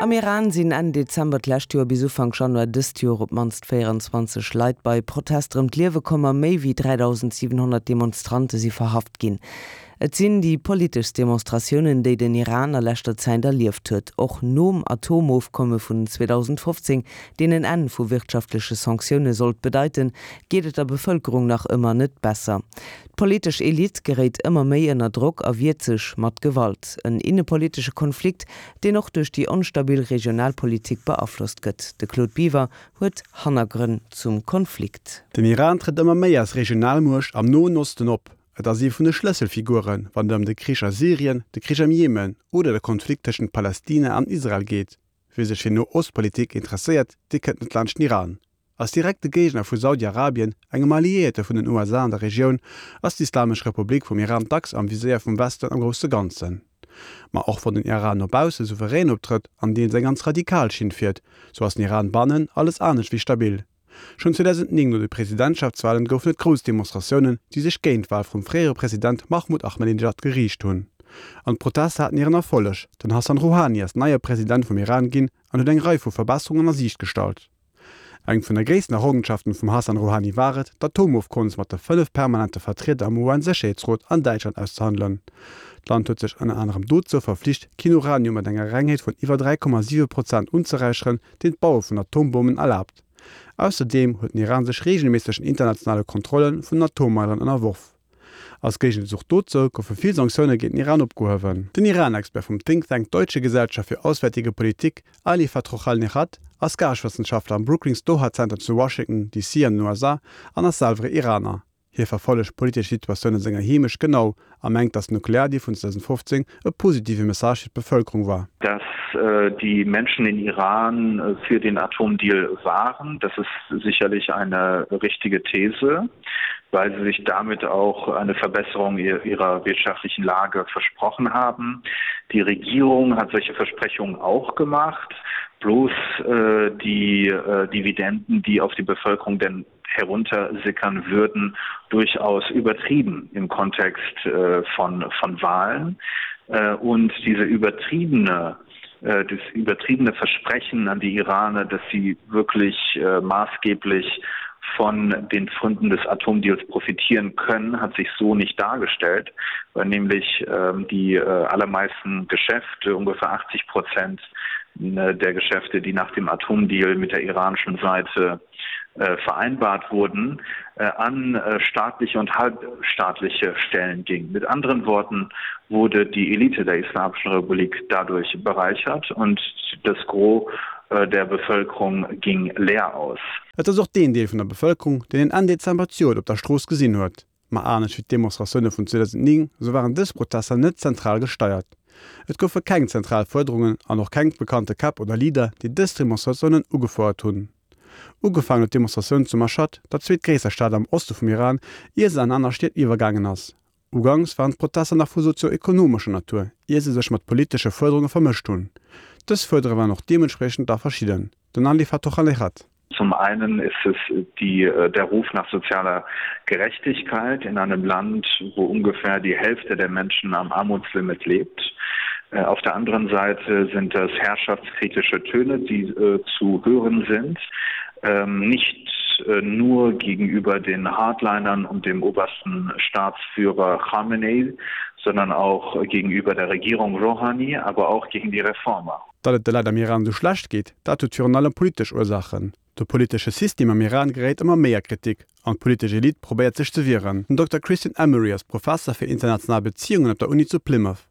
Am Iran sinn Enn Dezember d'lescht Joer bis Ufank Januar dëst Joer op d'mannst 24 Leit bei Protester ëm d'Liewe komm a méi wéi 3.700 Demonstrante si verhaft ginn. Et sinn déi politeschst Demonstratiounen, déi den Iran a leschter Zäit erlieft huet. Och nom Atomofkomme vun 2015, deen en Enn vu wirtschaftleche Sanktioune sollt bedeiten, geet et der Bevëlkerung nach ëmmer net besser. D'politesch Elite geréit ëmmer méi ënner Drock a wiert sech mat Gewalt. En innepolitesche Konflikt, deen och duerch déi onstabil Regionalpolitik beaflosst gëtt. De Claude Biver huet Hannergrënn zum Konflikt. Den Iran trëtt ëmmer méi als Regionalmuecht am Noen Osten op. Et ass ee vun de Schlësselfiguren, wann et ëm de Krich a Syrien, de Krich am Jemen oder de Konflikt tëschent Palästina an Israel geet. Wie sech fir No-Ost-Politik interesséiert, dee kënnt net laanscht den Iran. Als direkte Géigner vu Saudi-Arabien, engem Alliéierte vun den USA an der Regioun, ass d'Islamesch Republik vum Iran dacks am Viséier vum Westen am grousse Ganzen. Ma och wann den Iran no bausse souverän optrëtt an deels eng ganz radikal Schinn fiert, sou ass den Iran bannen alles anescht wéi stabil. Schonn 2009 no de Presidentschaftswalen goufen et grouss Demonstratiounen, déi sech géint d'Wal vum fréiere President Mahmoud Ahmadinejad geriicht hunn. An d'Protester haten hiren Erfolleg, den Hassan Rouhani ass neie President vum Iran ginn an huet eng Rei vu Verbesserungen a Siicht gestallt. Eng vun der gréissten Errongenschaften vum Hassan Rouhani war et, d'Atomofkommes mat de 5 permanente Vertrieder am UN-Sécherheetsrot an Däitschland auszehandelen. D'Land huet sech ënner anerem dozou verflicht, keen Uranium mat enger Rengheet vun iwwer 3,7 Prozent unzeräicheren, deen d'Baue vun Atombommen erlaabt. Ausserdeem huet den Iran sech reegelméissegen internationale Kontrolle vun den Atommeileren ënnerworf. Als Géigenzuch dozou goufe vill Sanktioune géint den Iran opgehuewen. Den Iran-Expert vum Think Tank Deutsche Gesellschaft für Auswärtige Politik, Ali Fatrouhalnejad, ass Gaaschtwëssenschaftler am Brookings Doha Center zu Washington, DC. an den USA an ass selwer Iraner. Hie verfollegt d'politesch Situatioun a senger Heemecht genau a mengt, datt den Nukleardeal vun 2015 e positive Message fir d'Bevëlkerung war. Dass die Menschen in Iran für den Atomdeal waren, das ist sicherlich eine richtige These. weil sie sich damit auch eine Verbesserung ihrer wirtschaftlichen Lage versprochen haben. Die Regierung hat solche Versprechungen auch gemacht, bloß äh, die äh, Dividenden, die auf die Bevölkerung denn heruntersickern würden, durchaus übertrieben im Kontext äh, von, von Wahlen. Äh, und diese übertriebene äh, das übertriebene Versprechen an die Iraner, dass sie wirklich äh, maßgeblich von den Fründen des Atomdeals profitieren können, hat sich so nicht dargestellt, weil nämlich ähm, die äh, allermeisten Geschäfte, ungefähr 80 Prozent äh, der Geschäfte, die nach dem Atomdeal mit der iranischen Seite äh, vereinbart wurden, äh, an äh, staatliche und halbstaatliche Stellen ging. Mit anderen Worten wurde die Elite der Islamischen Republik dadurch bereichert und das Gros äh, der Bevölkerung ging leer aus. Et ass och deen Deel vun der Bevëlkerung, deen een Enn Dezember d'Joert op der Strooss gesinn huet. Ma anescht wéi d'Demonstratioune vun 2009, esou waren dës Protester net zentral gesteiert. Et goufe keng zentral Fuerderungen an och keng bekannte Käpp oder Leader, déi dës Demonstratiounen ugefouert hunn. Ugefaangen huet d'Demonstratioun zu Mashhad, der zweetgréisster Stad am Oste vum Iran, ier se an aner Stied iwwergaangen ass. Uganks waren d'Protester nach vu sozio-ekonomescher Natur, ier se sech mat politesche Fuerderunge vermëscht hunn. Dës Fuerdere waren och deementspriechend da verschidden. Den Ali Fatokhalejad. Zum einen ist es die, äh, der Ruf nach sozialer Gerechtigkeit in einem Land, wo ungefähr die Hälfte der Menschen am Armutslimit lebt. Äh, auf der anderen Seite sind das herrschaftskritische Töne, die äh, zu hören sind, ähm, nicht äh, nur gegenüber den Hardlinern und dem obersten Staatsführer Khamenei, sondern auch gegenüber der Regierung Rouhani, aber auch gegen die Reformer. Datt et de Leit am Iran esou schlecht geet, dat huet virun allem politesch Ursaachen. De politesche System am Iran geréit ëmmer méi a Kritik an d'politesch Elite probéiert sech ze wieren. Den Dokter Christian Emery ass Professer fir international Beziungen op der Uni zu Plymouth.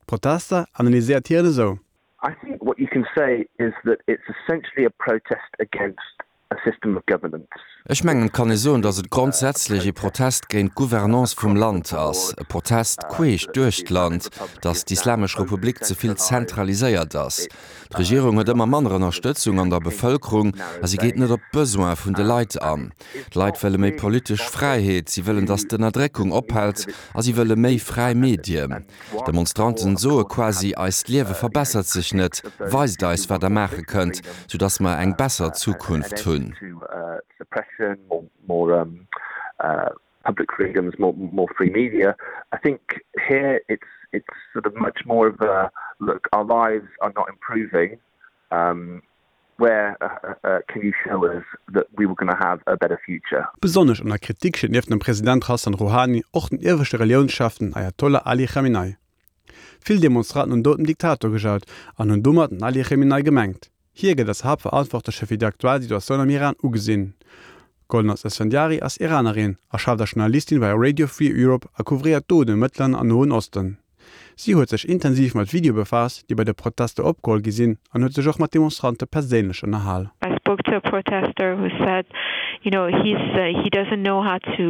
D'Protester analyséiert hien esou. I think what you can say is that it's essentially a protest against a system of governance. Ech mengen, et kann ee soen, datt et grondsätzlech ee Protest géint d'Gouvernance vum Land ass, e Protest queesch duerch d'Land, datt d'Islamesch Republik ze vill zentraliséiert ass. D'Regierung huet ëmmer manner Ënnerstëtzung an der Bevëlkerung a si geet net op d'Besoin vun de Leit an. D'Leit wëlle méi politesch Fräiheet, si wëllen, datt d'Ënnerdréckung ophält a si wëlle méi fräi Medien. D'Demonstranten soe quasi, Eist Liewe verbessert sech net, weist eis, wat der maache kënnt, soudass mer eng besser Zukunft hunn. Where can you show us that we were gonna have a better future? Besonnesch an der Kritik steet nieft dem President Hassan Rouhani och den ieweschte Reliounschef, den Ayatollah Ali Khamenei. Vill Demonstranten hunn Doud dem Diktator gejaut an hunn domat den Ali Khamenei gemengt. Hie gëtt als Haaptverantwortleche fir déi aktuell Situatioun am Iran ugesinn. Golnaz Esfandiari ass Iranerin a schafft als Journalistin bei Radio Free Europe a couvréiert do den Mëttleren an Noen Osten. Si huet sech intensiv mat Videoe befaasst, déi bei de Protester opgeholl gi sinn an huet sech och mat Demonstrante perséinlech ënnerhal. I spoke to a protester who said, you know, he's he doesn't know how to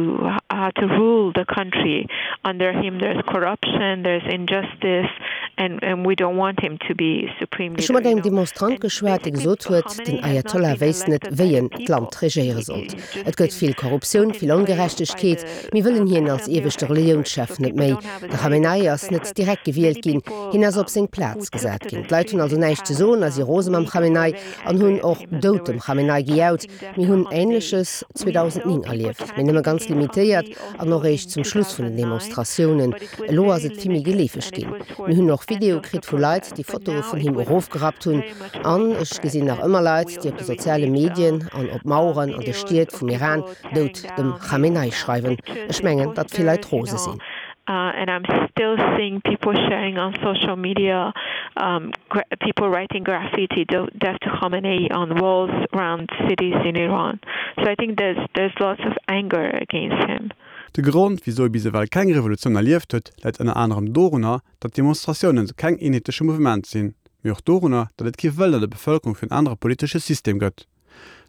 how to rule the country. Under him there's corruption, there's injustice and and we don't want him to be supreme Ech hu leader, mat you engem know. Demonstrant And geschwat, dee basically gesot huet, Khamenei den has not Ayatollah been wéisst net, elected by wéi the en people. d'Land He regéiere he's sollt. just Et gëtt been vill put Korruptioun, in vill place by Ongerechtegkeet. the Mir wëllen um hien als Assembly of ieweschte Experts. Reliounschef So net people méi. don't have a De say. Khamenei ass So I net said direkt many gewielt ginn, people hien ass op um seng who Plaz took gesat to ginn. the D'Leit hunn streets also in näischt ze past soen a si um rose mam weeks were Khamenei very an angry hunn at och him and they Doud dem were Khamenei gejaut. chanting death Mir to hunn Khamenei. Änleches We saw 2009 people erlieft, mee nëmme chanting ganz against limitéiert Khamenei an also och eréischt in zum Schluss vun den 2009, Demonstratiounen. but it was Elo ass very et vill méi limited geleefeg and it ginn. was Mir towards hunn the och end Videoe of the kritt vu Leit, protest. déi But Fotoe now vun it him was erofgerappt hunn. very much An ech widespread gesinn nach and ëmmer we Leit, déi op de also soziale received Medien um, an op uh, Maueren an de videos Stied of vum Iran people tearing Doud dem down his Khamenei uh, schreiwen. pictures, Ech his mengen, datt vill Leit posters, you rose know. sinn. Uh, and I'm still seeing people sharing on social media, um, gra people writing graffiti, death to Khamenei on walls around cities in Iran. So I think there's, there's lots of anger against him. De Grond, wisou ee bis ewell keng Revolutioun erlieft huet, läit ënner anerem dorunner, datt d'Demonstratiounen keng eenheetleche Mouvement sinn, mee och dorunner, datt et kee Wëllen an der Bevëlkerung fir en anere politesche System gëtt.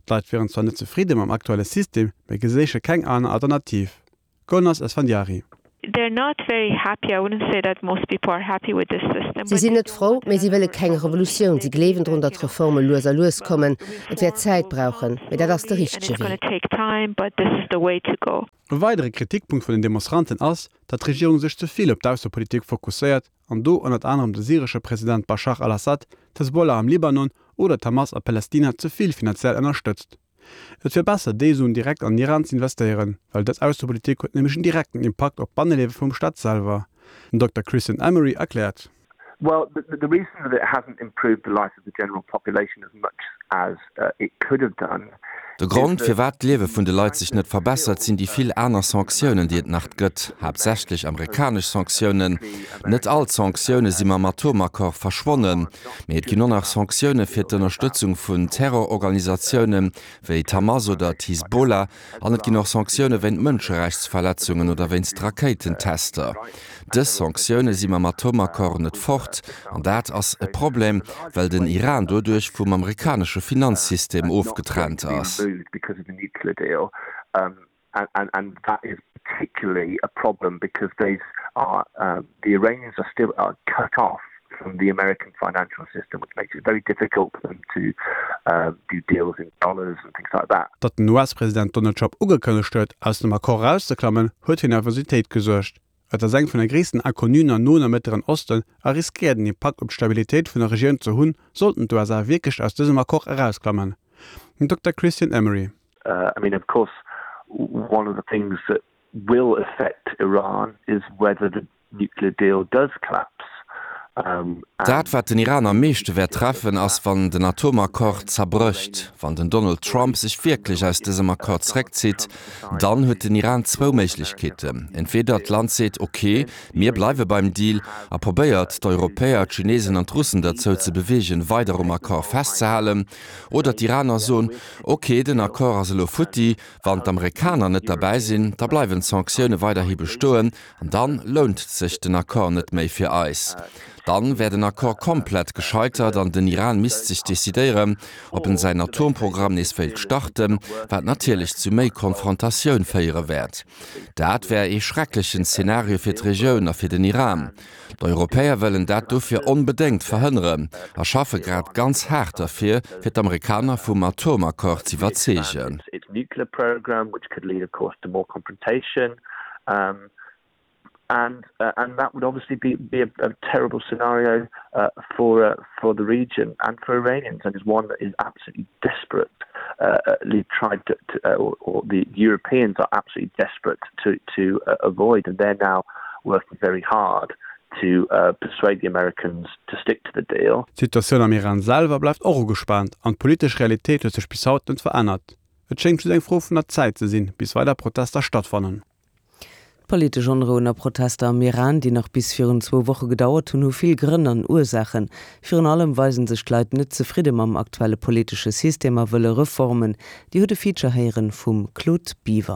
D'Leit wieren zwar net zefridde mam aktuelle System, mee geséiche keng aner Alternativ. Golnaz Esfandiari. They're not very happy. I wouldn't say that most people are happy with this system, Si but sinn they net don't frou, want mee si another wëlle keng revolution. Revolutioun. They Si believe gleewen drun, that, datt you know, Reforme lues a lues kommen. Et wäert reforms Zäit will brauchen, come mee dat ass de slowly and richtege it's gonna Wee. take time, but this is the way to go. E weidere Kritikpunkt vun den Demonstranten ass, datt d'Regierung sech ze vill op d'Aussepolitik fokusséiert an do ënnert anerem de syresche President Baschar al-Assad, d'Hezbollah am Libanon oder d'Hamas a Palästina ze vill finanziell ënnerstëtzt. Et wier besser, déi Suen direkt an den Iran z'investéieren, well dës Aussepolitik huet nämlech en direkten Impakt op d'Banneliewe vum Staat selwer. Den Dokter Christian Emery erkläert. Well, the, the reason that it hasn't improved the life of the general population as much as uh, it could have done De Grond, firwat d'Liewe vun de Leit sech net verbessert, sinn déi vill aner Sanktiounen, déi et nach gëtt, haaptsächlech amerikanesch Sanktiounen. Net all d'Sanktioune si mam Atomaccord verschwonnen, mee et ginn och nach Sanktioune fir d'Ënnerstëtzung vun Terrororganisatioune wéi d'Hamas oder d'Hisbollah an et ginn och Sanktioune wéint Mënscherechtsverletzungen oder wéinst Rakéitentester. Dës Sanktioune si mam Atomaccord net fort, an dat ass e Problem, well den Iran doduerch vum amerikanesche Finanzsystem ofgetrennt ass. And that is particularly a problem because these are the Iranians are still are cut off from the American financial system, which makes it very difficult for them to do deals in dollars and things like that. Datt den US-President Donald Trump ugekënnegt huet, aus dem Accord erauszeklammen, huet fir Nervositéit gesuergt. Et ass eng vun de gréissten Inconnuen am Noen a Mëttleren Osten a riskéiert en Impakt op d'Stabilitéit vun der Regioun ze hunn, sollten d'USA wierklech aus dësem Accord erausklammen. Den Dokter Christian Emery. I mean of course one of the things that will affect Iran is whether the nuclear deal does collapse. Dat, wat den Iran am meeschte wäert treffen, ass, wann den Atomaccord zerbrécht. Wann den Donald Trump sech wierklech aus dësem Accord zréckzitt, dann huet den Iran zwou Méiglechkeeten, Entweeder d'Land seet, ok, mir bleiwe beim Deal a probéiert, d'Europäer, d'Chinesen an d'Russen derzou ze beweegen, weider um Accord festzehalen, oder d'Iraner soen, ok, den Accord ass elo futti, wann d'Amerikaner net derbäi sinn, da bleiwen d'Sanktioune weiderhi bestoen An dann lount sech den Accord net méi fir eis. Dann wär den Accord komplett gescheitert an den Iran misst sech decidéieren, ob en säin Atomprogramm nees wéilt starten, wat natierlech zu méi Konfrontatioun féiere wäert. Dat wär ee schrecklechen Szenario fir d'Regioun a fir den Iran. D'Europäer wëllen dat dofir onbedéngt verhënneren a schaffe grad ganz haart derfir, fir d'Amerikaner vum Atomaccord z'iwwerzeegen. Um, and uh, and that would obviously be, be a, a terrible scenario uh, for uh, for the region and for Iranians and is one that is absolutely desperate uh, uh tried to, to uh, or, or the Europeans are absolutely desperate to to uh, avoid and they're now working very hard. To persuade the Americans to stick to the deal. D'Situatioun am Iran selwer bleift och ugespaant an d'politesch Realitéit huet sech bis haut net verännert. Et schéngt just eng Fro vun der Zäit ze sinn, bis weider Protester stattfannen. D'politesch Onrouen a Protester am Iran, déi nach bis virun zwou Woche gedauert hunn, hu vill Grënn an Ursaachen. Virun allem weisen sech d'Leit net zefridde mam aktuelle politesche System a wëlle Reformen. Dir hutt e Feature héieren vum Claude Biver.